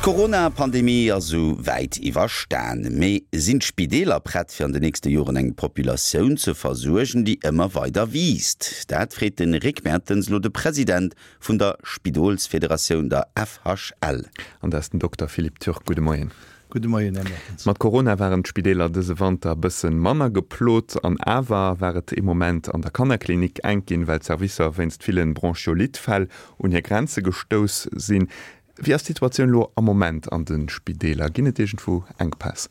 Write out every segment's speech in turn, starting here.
D'Corona-Pandemie ass esou wäit iwwerstan. Mee sinn d'Spideeler prett fir an de nächste Joren eng Populatioun ze versuergen, déi ëmmer weider wiisst? Dat freet de Rick Mertens elo de President vun der Spidolsfederatioun, der FHL. An dat ass den Dokter Philippe Turk. Gudde Moien. Gudde Moien, Här Mertens. Mat Corona waren d'Spideeler dëse Wanter bëssen manner geplot. An awer war et ee Moment an der Kannerklinik enk ginn, well d'Servicer wéinst villen Bronchiolite-Fäll un hir Grenze gestouss sinn. Wéi ass d'Situatioun elo am Moment an de Spideeler? Ginn et iergendwou Enkpäss?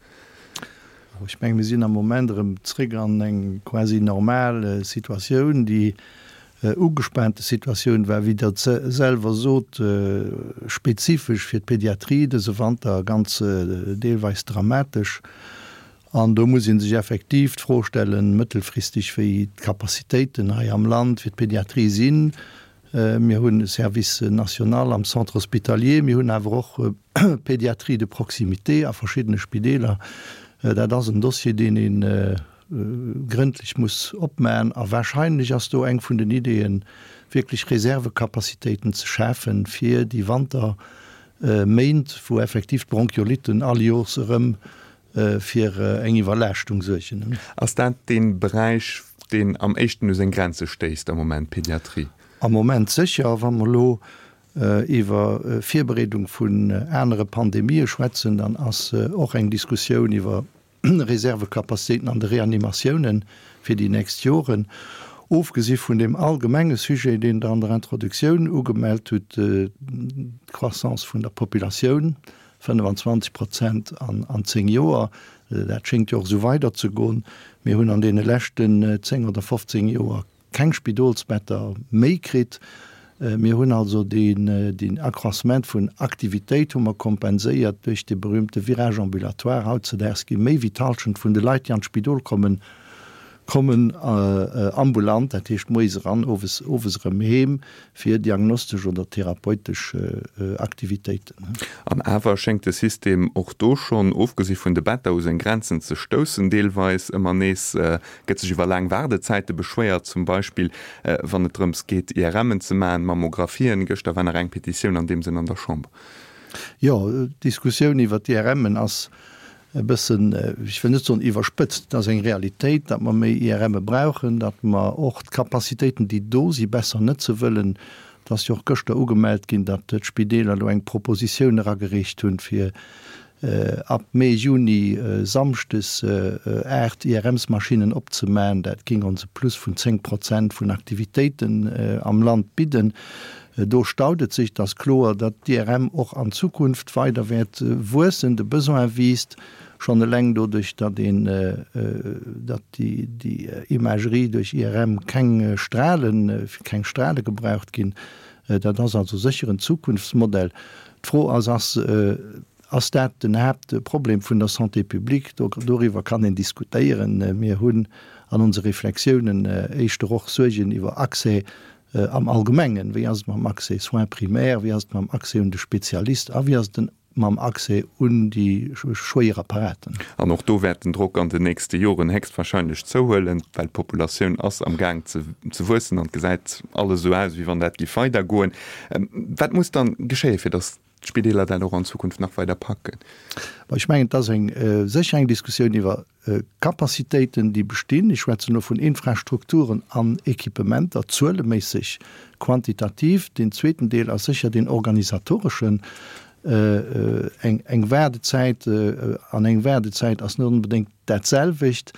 Ech menge mir sinn am Moment erëm zréck an eng quasi normal Situatioun. Déi ugespaante Situatioun war, wéi Der selwer sot, spezifesch fir d'Pediatrie dëse Wanter ganz deelweis dramatesch. An do muss ee sech effektiv d'Fro stellen, mëttelfristeg, wéi d'Capacitéiten hei am Land fir d'Pediatrie sinn. Mir hunn e Service national am Centre hospitalier, mir hunn awer och Pédiatrie de proximité a verschiddene Spideeler. Dat ass en Dossier, deen ee grëndlech muss opmaen. A wahrscheinlech ass do eng vun den Ideeën, wierklech Reservecapacitéiten ze schafen, fir déi Wanterméint, wou effektiv d'Bronchiolitten all Jors erëm fir eng Iwwerlaaschtung suergen. Ass dat dee Beräich, deen am éischten u seng Grenze stéisst am Moment, d'Pediatrie? Am Moment sécher. Wa mer elo iwwer Virbereedung vun anere Pandemië schwätzen, dann ass och eng Diskussioun iwwer Reservecapacitéiten an de Reanimatiounen fir déi nächst Joren, ofgesi vun deem allgemenge Sujet, deen Der an der Introduktioun ugemellt hutt, d'Croissance vun der Populatioun, 25 Prozent an 10 Joer, dat schéngt jo och esou weiderzegoen. Mir hunn an deene leschten 10 oder 15 Joer keng Spidolsbetter méi kritt. Mir hunn also deen Accroissement vun Aktivitéit hu mer kompenséiert duerch de berühmte Virage ambulatoire. Hautzedaags gi méi wéi d'Halschent vun de Leit, déi an d'Spidol kommen, kommen ambulant, dat heescht moies eran, owes owes erëm heem, fir diagnostesch oder therapeutesch Aktivitéiten. An awer schéngt de System och do schonn, ofgesi vun de Better, u seng Grenzen ze stoussen. Deelweis ëmmer nees gëtt sech iwwer laang Waardezäite beschwéiert, zum Beispill wann et drëms geet, IRMen ze maachen, Mammographien. Gëschter war nach eng Petitioun an deem Sënn an der Chamber. Jo, d'Diskussioun iwwer d'IRMen ass e bëssen, ech wëll net soen iwwerspëtzt, et ass eng Realitéit, datt mer méi IRMe brauchen, datt mer och d'Capacitéiten, déi do si besser nëtze wëllen. Et ass jo och gëschter ugemellt ginn, datt d'Spideeler elo eng Propositioun eragereecht hunn, fir ab Mee, Juni samschdes 8 IRMsmaschinnen opzemaen. Dat géing ons e Plus vun 10 Prozent vun Aktivitéiten am Land bidden. Do staut et sech. Et ass kloer, datt d'IRM och an Zukunft weider wäert wuessen. De Besoin wiisst schonn eleng doduerch, datt een, datt déi Imagerie duerch IRM keng Stralen, keng Strale gebraucht ginn. Dat ass also sécher en Zukunftsmodell. D'Fro ass, ass Ass dat den Haaptproblem vun der Santé publique? Doriwwer kann een diskutéieren. Mir hunn an onse Reflexiounen éischter och Suergen iwwer Accès am Allgemengen. Wéi ass et mam Accès soins primaires, wéi ass et mam Accès un de Spezialist a wéi ass et mam Accès un déi schwéier Apparaten? An och do wäert den Drock an den nächste Joren héchstwahrscheinlech zouhuelen, well d'Populatioun ass am Gaang ze wuessen an et gesäit alles esou aus, wéi wann dat géif weidergoen. Wat muss dann geschéien, fir datt d'Spideeler dat och an Zukunft nach weider packen? Ech mengen, et ass eng sécher eng Diskussioun iwwer Capacitéiten, déi bestinn. Ech schwätzen elo vun Infrastrukturen an Equipementer, zueleméisseg, quantitativ. Deen zweeten Deel ass sécher deen organisatoreschen. Eng Waardezäit an eng Waardezäit ass net onbedéngt dat selwecht.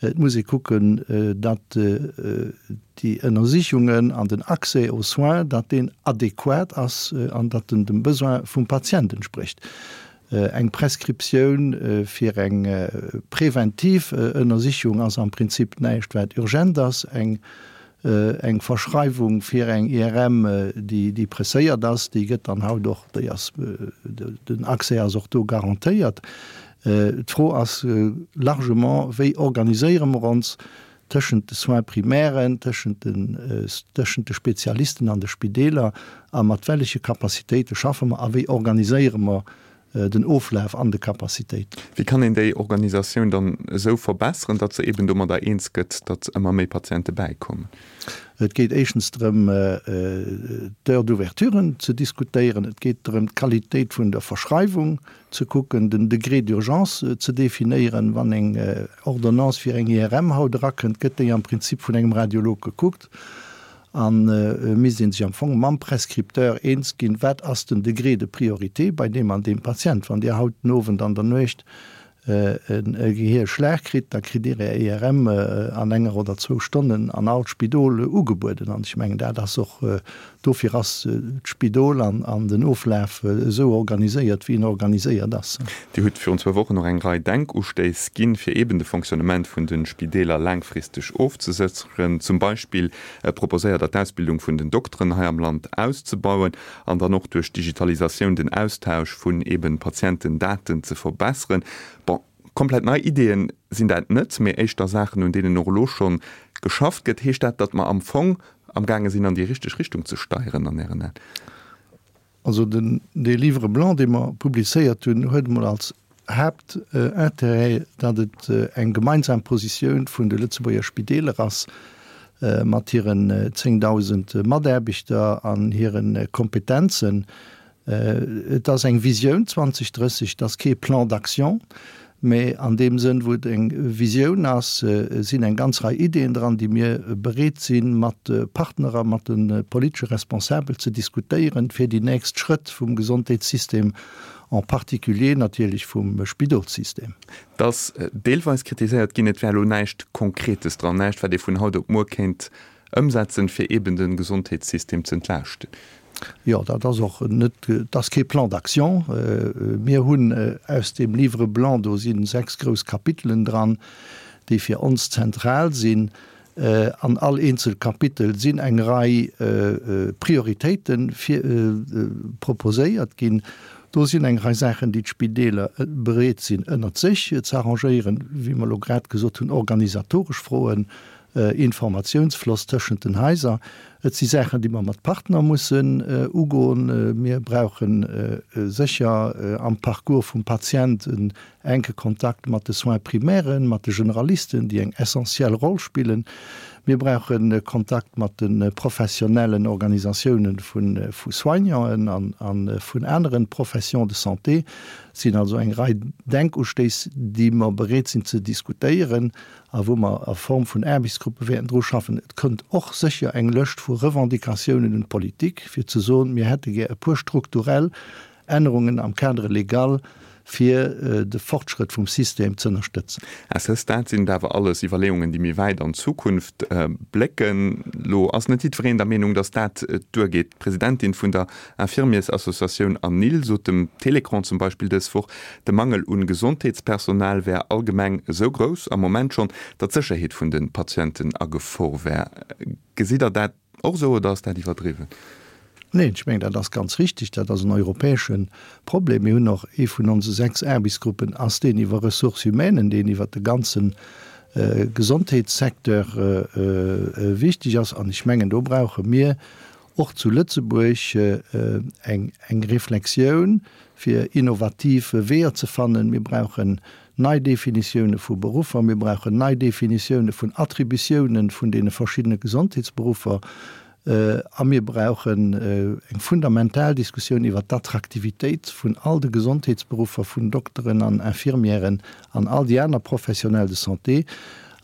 Et muss ee kucken, datt déi Ënnersichungen an den Accès aux soins, datt deen adequat ass an datt en dem Besoin vum Patient entsprécht. Eng Prescriptioun fir eng preventiv Ënnersichung ass am Prinzip näischt, wat urgent ass. Eng eng Verschreiwung fir eng IRM, déi déi presséiert ass, déi gëtt dann haut och, déi ass, den Accès ass och do garantéiert. D'Fro ass largement, wéi organiséiere mer ons tëschent de Soins primairen, tëschent den, tëschent de Spezialisten an de Spideeler a mat welleche Capacitéite schaffe mer a wéi organiséiere mer. Den Oflaf an de Capacitéiten. Wéi kann een déi Organisatioun dann esou verbesseren, datt se eben domadder eens gëtt, datt ëmmer méi Patiente bäikommen? Et geet éischtens drëm, d'Heures d'ouverturen ze diskutéieren. Et geet drëm, d'Qualitéit vun der Verschreiwung ze kucken, den Degré d'urgence ze definéieren. Wann eng Ordonnance fir eng IRM haut erakënnt, gëtt déi am Prinzip vun engem Radiolog gekuckt. A misst ee sech am Fong mam Prescripteur eens ginn, wat ass den Degré de priorité bei deem an deem Patient. Wann Dir haut den Owend an der Nuecht e Gehierschlag kritt, da kritt Dir Är IRM an enger oder zwou Stonnen an all Spidol ugebueden. An ech mengen, dat ass och, dofir ass d'Spidol an den Oflaf esou organiséiert, wéi en organiséiert ass. Dir hutt virun zwou Wochen och eng Rei Denkustéiss ginn, fir eeben de Fonctionnement vun de Spideeler laangfristeg ofzesécheren. Zum Beispill proposéiert Der, d'Ausbildung vun den Dokteren hei am Land auszebauen an dann och duerch d'Digitalisatioun den Austausch vun eeben Patientendaten ze verbesseren. Bon, komplett nei Ideeën sinn dat net, mee éischter Saachen, un deenen och elo schonn geschafft gëtt. Heescht dat, datt mer am Fong amgaange sinn, an déi richteg Richtung ze steieren an Ären Aen? Also den, dee Livre blanc, dee mer publizéiert hunn, huet emol als Haaptintérêt, datt et eng gemeinsam Positioun vun de Lëtzebuerger Spideeler ass, mat hiren 10.000 Mataarbechter an hire Kompetenzen. Et ass eng Visioun 2030, et ass kee Plan d'action, mä an deem Sënn, wou et eng Visioun ass, sinn eng ganz Rei Ideeën dran, déi mir bereet sinn, mat de Partner a mat de politesche Responsabel ze diskutéieren, fir déi nächst Schrëtt vum Gesondheetssystem, en particulier natierlech vum Spidolssystem. Et ass deelweis kritiséiert ginn, et wär elo näischt Konkretes dran, näischt, wat ee vun haut op muer kéint Ëmsetzen, fir eeben de Gesondheetssystem ze entlaaschten. Jo, dat ass och net, et ass kee Plan d'action. Mir hunn aus deem Livre blanc, do si sechs grouss Kapitelen dran, déi fir ons zentral sinn. An all eenzel Kapitel sinn eng Rei Prioritéite proposéiert ginn. Do sinn eng Rei Saachen, déi d'Spideeler bereet sinn ënnert sech ze arrangéieren, wéi mer elo grad gesot hunn, organisatoresch Froen, Informatiounsfloss tëschent den Haiser. Et si Saachen, déi mer mat Partner mussen ugoen. Mir brauche sécher am Parcours vum Patient en enke Kontakt mat de Soins primairen, mat de Generalisten, déi eng essentiell Roll spillen. Mir brauche Kontakt mat de professionellen Organisatiounen vu Soignanten a vun anere Professions de santé. Et sinn also eng Rei Denkustéiss, déi mer bereet sinn ze diskutéieren a wou mer a Form vun Aarbechtsgruppe wäerten dru schaffen. Et kënnt och sécher eng Lëscht vu Revendicatiounen un d'Politik, fir ze soen, mir hätte gär e puer strukturell Ännerungen am Cadre légal, fir de Fortschrëtt vum System z'ënnerstëtzen. À ce stade sinn et awer alles Iwwerleeungen, déi méi wäit an d'Zukunft blécken. Lo ass net jiddwereen der Meenung, datt dat duergeet. D'Presidentin vun der Infirmiersassociatioun ANIL sot dem Télécran zum Beispill dës Woch, de Mangel un Gesondheetspersonal wär allgemeng esou grouss am Moment schonn, datt d'Sécherheet vun de Patienten a Gefor wär. Gesitt Der dat och esou oder ass dat iwwerdriwwen? Neen, ech mengen, dat ass ganz richtig. Dat ass en europäesche Problem. Mir hunn och, ee vun onse 6 Aarbechtsgruppen ass deen iwwer Ressources humaines, deen iwwert de ganze Gesondheetssecteur wichteg ass. An ech mengen, do brauche mir och zu Lëtzebuerg eng Reflexioun, fir innovativ Weeër ze fannen. Mir brauchen nei Definitioune vu Beruffer, mir brauchen nei Definitioune vun Attributiounen vun deene verschiddene Gesondheetsberuffer a mir brauchen eng fundamental Diskussioun iwwert d'Attraktivitéit vun all de Gesondheetsberuffer, vun Dokteren an Infirmièren an all déi aner Professionnels de santé.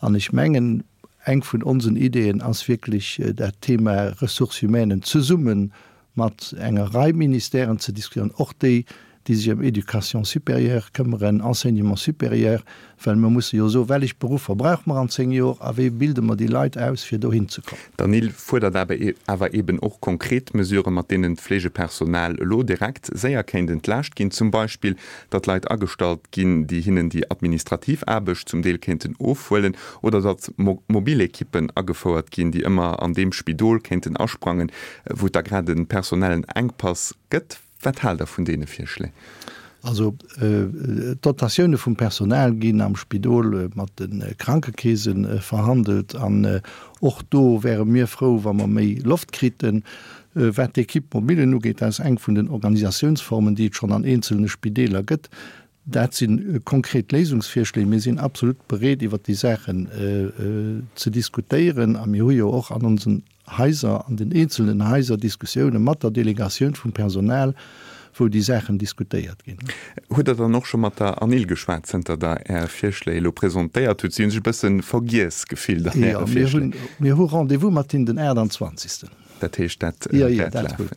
An ech mengen, Eng vun onsen Ideeën ass wierklech dat Thema Ressources humaines zesumme mat enger Rei Ministèren ze diskutieren, och déi, déi sech ëm Éducation supérieure këmmeren, Enseignement supérieur, well mer musse jo soen, wellech Beruffer brauche mer an 10 Jor a wéi bilde mer déi Leit aus, fir dohin ze kommen. D'ANIL fuerdert awer eeben och konkret Mesuren, mat deenen d'Fleegepersonal elo direkt séier kéint entlaascht ginn, zum Beispill datt Leit agestallt ginn, déi hinnen déi administrativ Aarbecht zum Deel kéinten ofhuelen, oder datt mobil Ekippen agefouert ginn, déi ëmmer an deem Spidol kéinten asprangen, wou et da grad e personellen Enkpass gëtt. Wat haalt Der vun deene Virschléi? Also d'Dotatioune vum Personal ginn am Spidol mat de Krankekeese verhandelt an och do wäre mir frou, wa mer méi Loft kriten. Wat d'Equipe mobilen ugeet, dat ass eng vun den Organisatiounsformen, déi et schonn an eenzelne Spideeler gëtt. Dat si konkret Léisungsvirschléi. Mir sinn absolut bereet, iwwert déi Saachen ze diskutéieren. A mir hu jo och an onsen Haiser, an den eenzelnen Haiser Diskussioune mat der Delegatioun vum Personal, wou déi Saachen diskutéiert ginn. Hutt Der dann och scho mat der ANIL geschwat, zënter Der Är Virschléi elo presentéiert hutt? Si hu sech e bësse vergiess gefillt an Äre Virschléi. Jo, mir hu Rendez-vous mat hinnen den 28. Dat heescht, dat wäert lafen.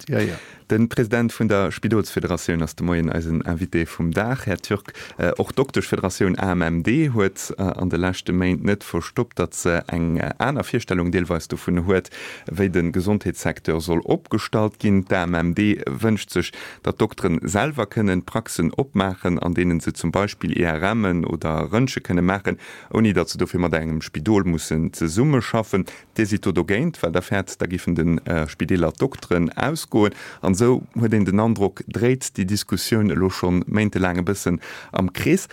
De President vun der Spidolsfederatioun ass de Moien eisen Invité vum Dag. Här Türk, och d'Dokteschfederatioun AMMD huet an de leschte Méint net verstoppt, datt se eng aner Virstellung deelweis dovun huet, wéi de Gesondheetssecteur soll opgestallt ginn. D'AMMD wënscht sech, datt d'Dokteren selwer kënnen Praxen opmaachen, an deenen se zum Beispill IRMen oder Röntge kënne maachen, ouni datt se dofir mat engem Spidol mussen zesummeschaffen. Dir sidd do dogéint, well Der fäert, da giffen de Spideeler d'Dokteren ausgoen. An esou huet een den Androck, dréit déi Diskussioun elo scho méintelaang e bëssen am Krees.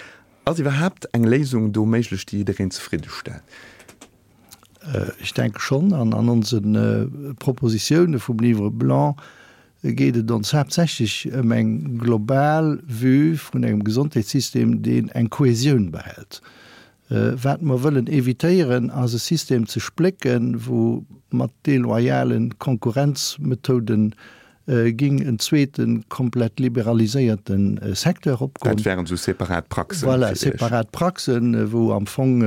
Ass iwwerhaapt eng Léisung do méiglech, déi jiddereen zefridde stellt? Ech denke schonn. An an onse Propositioune vum Livre blanc geet et ons haaptsächlech ëm eng global Vue vun engem Gesondheetssystem, deen eng Kohäsioun behält. Wat mer wëllen évitéieren, ass e System ze splécken, wou mat deloyale Konkurrenzmethoden ging en zweete komplett liberaliséierte Secteur opgoen. Dat wären esou separat Praxen. Voilà, separat Praxen, wou am Fong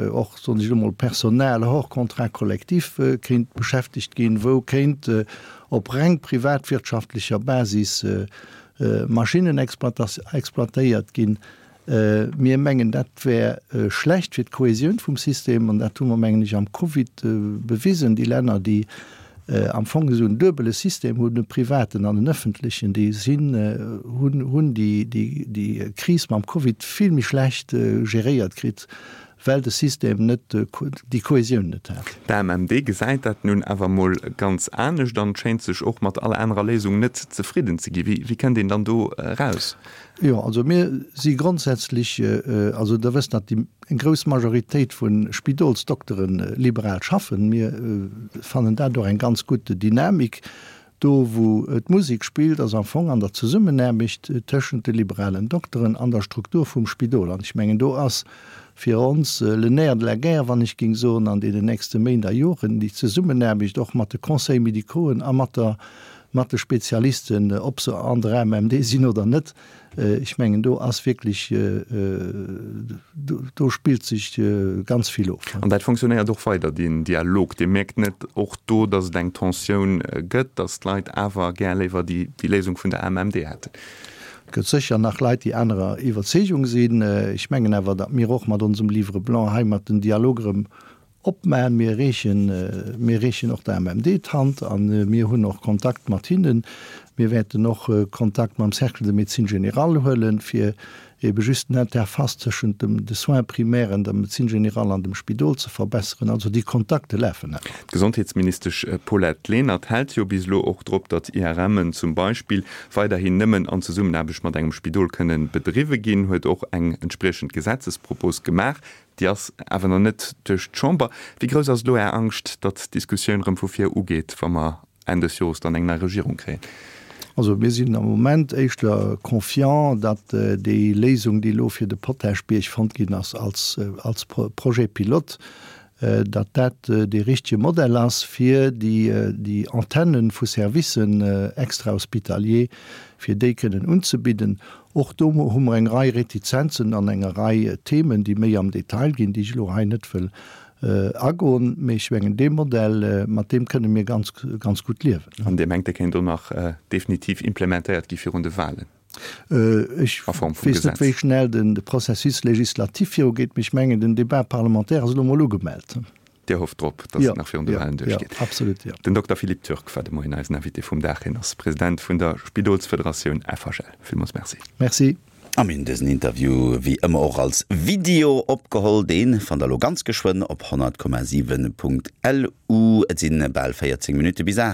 och, soen ech elo mol, Personal hors contrat collectif kéint beschäftegt ginn, wou kéint op reng privatwirtschaftlecher Basis Maschinnen exploitéiert ginn. Mir mengen, dat wär schlecht fir d'Kohäsioun vum System, an dat hu mer, mengen ech, am Covid bewisen. Déi Länner, déi am Fong esou en duebele System hunn, e privaten an en ëffentlechen, déi sinn, hunn déi Kris mam Covid vill méi schlecht geréiert kritt, well de System net déi Kohäsioun net hat. D'AMMD gesäit dat nun awer mol ganz anescht an schéint sech och mat all anerer Léisung net zefridden ze ginn. Wéi kënnt een dann do eraus? Jo, also mir si grondsätzlech, also Der wësst, datt déi eng grouss Majoritéit vu Spidolsdoktere liberal schaffen. Mir fannen dat och eng ganz gutt Dynamik. Do wou d'Musek spillt, ass am Fong an der Zesummenaarbecht tëschent de liberalen Dokteren an der Struktur vum Spidol. An ech mengen, do ass fir ons le nerf de la guerre, wann ech géing soen, an deenen nächste Méint a Joren, déi Zesummenaarbecht och mat de Conseils médicauxen a mat der, mat de Spezialisten, ob se an der AMMD sinn oder net. Ech mengen, do ass wierklech, do spillt sech ganz vill of. An dat fonctionnéiert och weider, deen Dialog? Dir mierkt net och do, datt et eng Tensioun gëtt, datt d'Leit awer gär léiwer déi Léisung vun der AMMD hätten? Et gëtt sécher nach Leit, déi anerer Iwwerzeegung sinn. Ech mengen awer, datt mir och mat onsem Livre blanc heimat den Dialog erëm Opmaen. Mir reechen, mir reechen och der AMMD d'Hand a mir hunn och Kontakt mat hinnen. Mir wäerten och Kontakt mam Cercle de médecine générale huelen, fir ebe just den Interface tëschent dem de Soins primaires, der Médecine générale an dem Spidol ze verbesseren. Also déi Kontakte lafen awer. D'Gesondheetsministesch Paulette Lenert hält jo bis elo och drop, datt IRMen zum Beispill weiderhin nëmmen an Zesummenaarbecht mat engem Spidol kënnen bedriwwe ginn, huet och eng entspriechend Gesetzespropos gemaach. Déi ass awer nach net duerch d'Chamber. Wéi grouss ass elo Är Angscht, datt d'Diskussioun erëm vu vir ugeet, wa mer Enn des Jores dann eng nei Regierung kréien? Also mir sinn am Moment éischter confiant, datt déi Léisung, déi elo fir de Potaschbierg fonnt ginn ass als als Projet pilote, datt dat dee richtege Modell ass, fir déi déi Antenne vu Servicen extra-hospitaliers, fir déi kënnen unzebidden. Och do hu mer eng Rei Retizenzen an enger Rei Themen, déi méi am Detail ginn, déi ech elo hei net wëll agoen. Mee ech mengen, dee Modell, mat deem kënne mir ganz, ganz gutt liewen. An Dir mengt, dee kéint och nach definitiv implementéiert gi virun de Wahlen? Ech weess net, wéi schnell de Processus législatif virugeet, mee ech mengen, den Débat parlementaire ass elo emol ugemellt. Dir hofft drop, datt et nach virun de Wahlen duerchgeet. Jo, absolut, jo. Den Dokter Philippe Türk war de Moien eisen Invité vum Dag. Hien ass President vun der Spidolsfederatioun FHL. Villmools Merci. Merci. A mir hunn dësen Interview wéi ëmmer och als Video opgeholl. Dee fannt der elo ganz geschwënn op 100,7.lu. Et sinn bal 14 Minutte bis 8.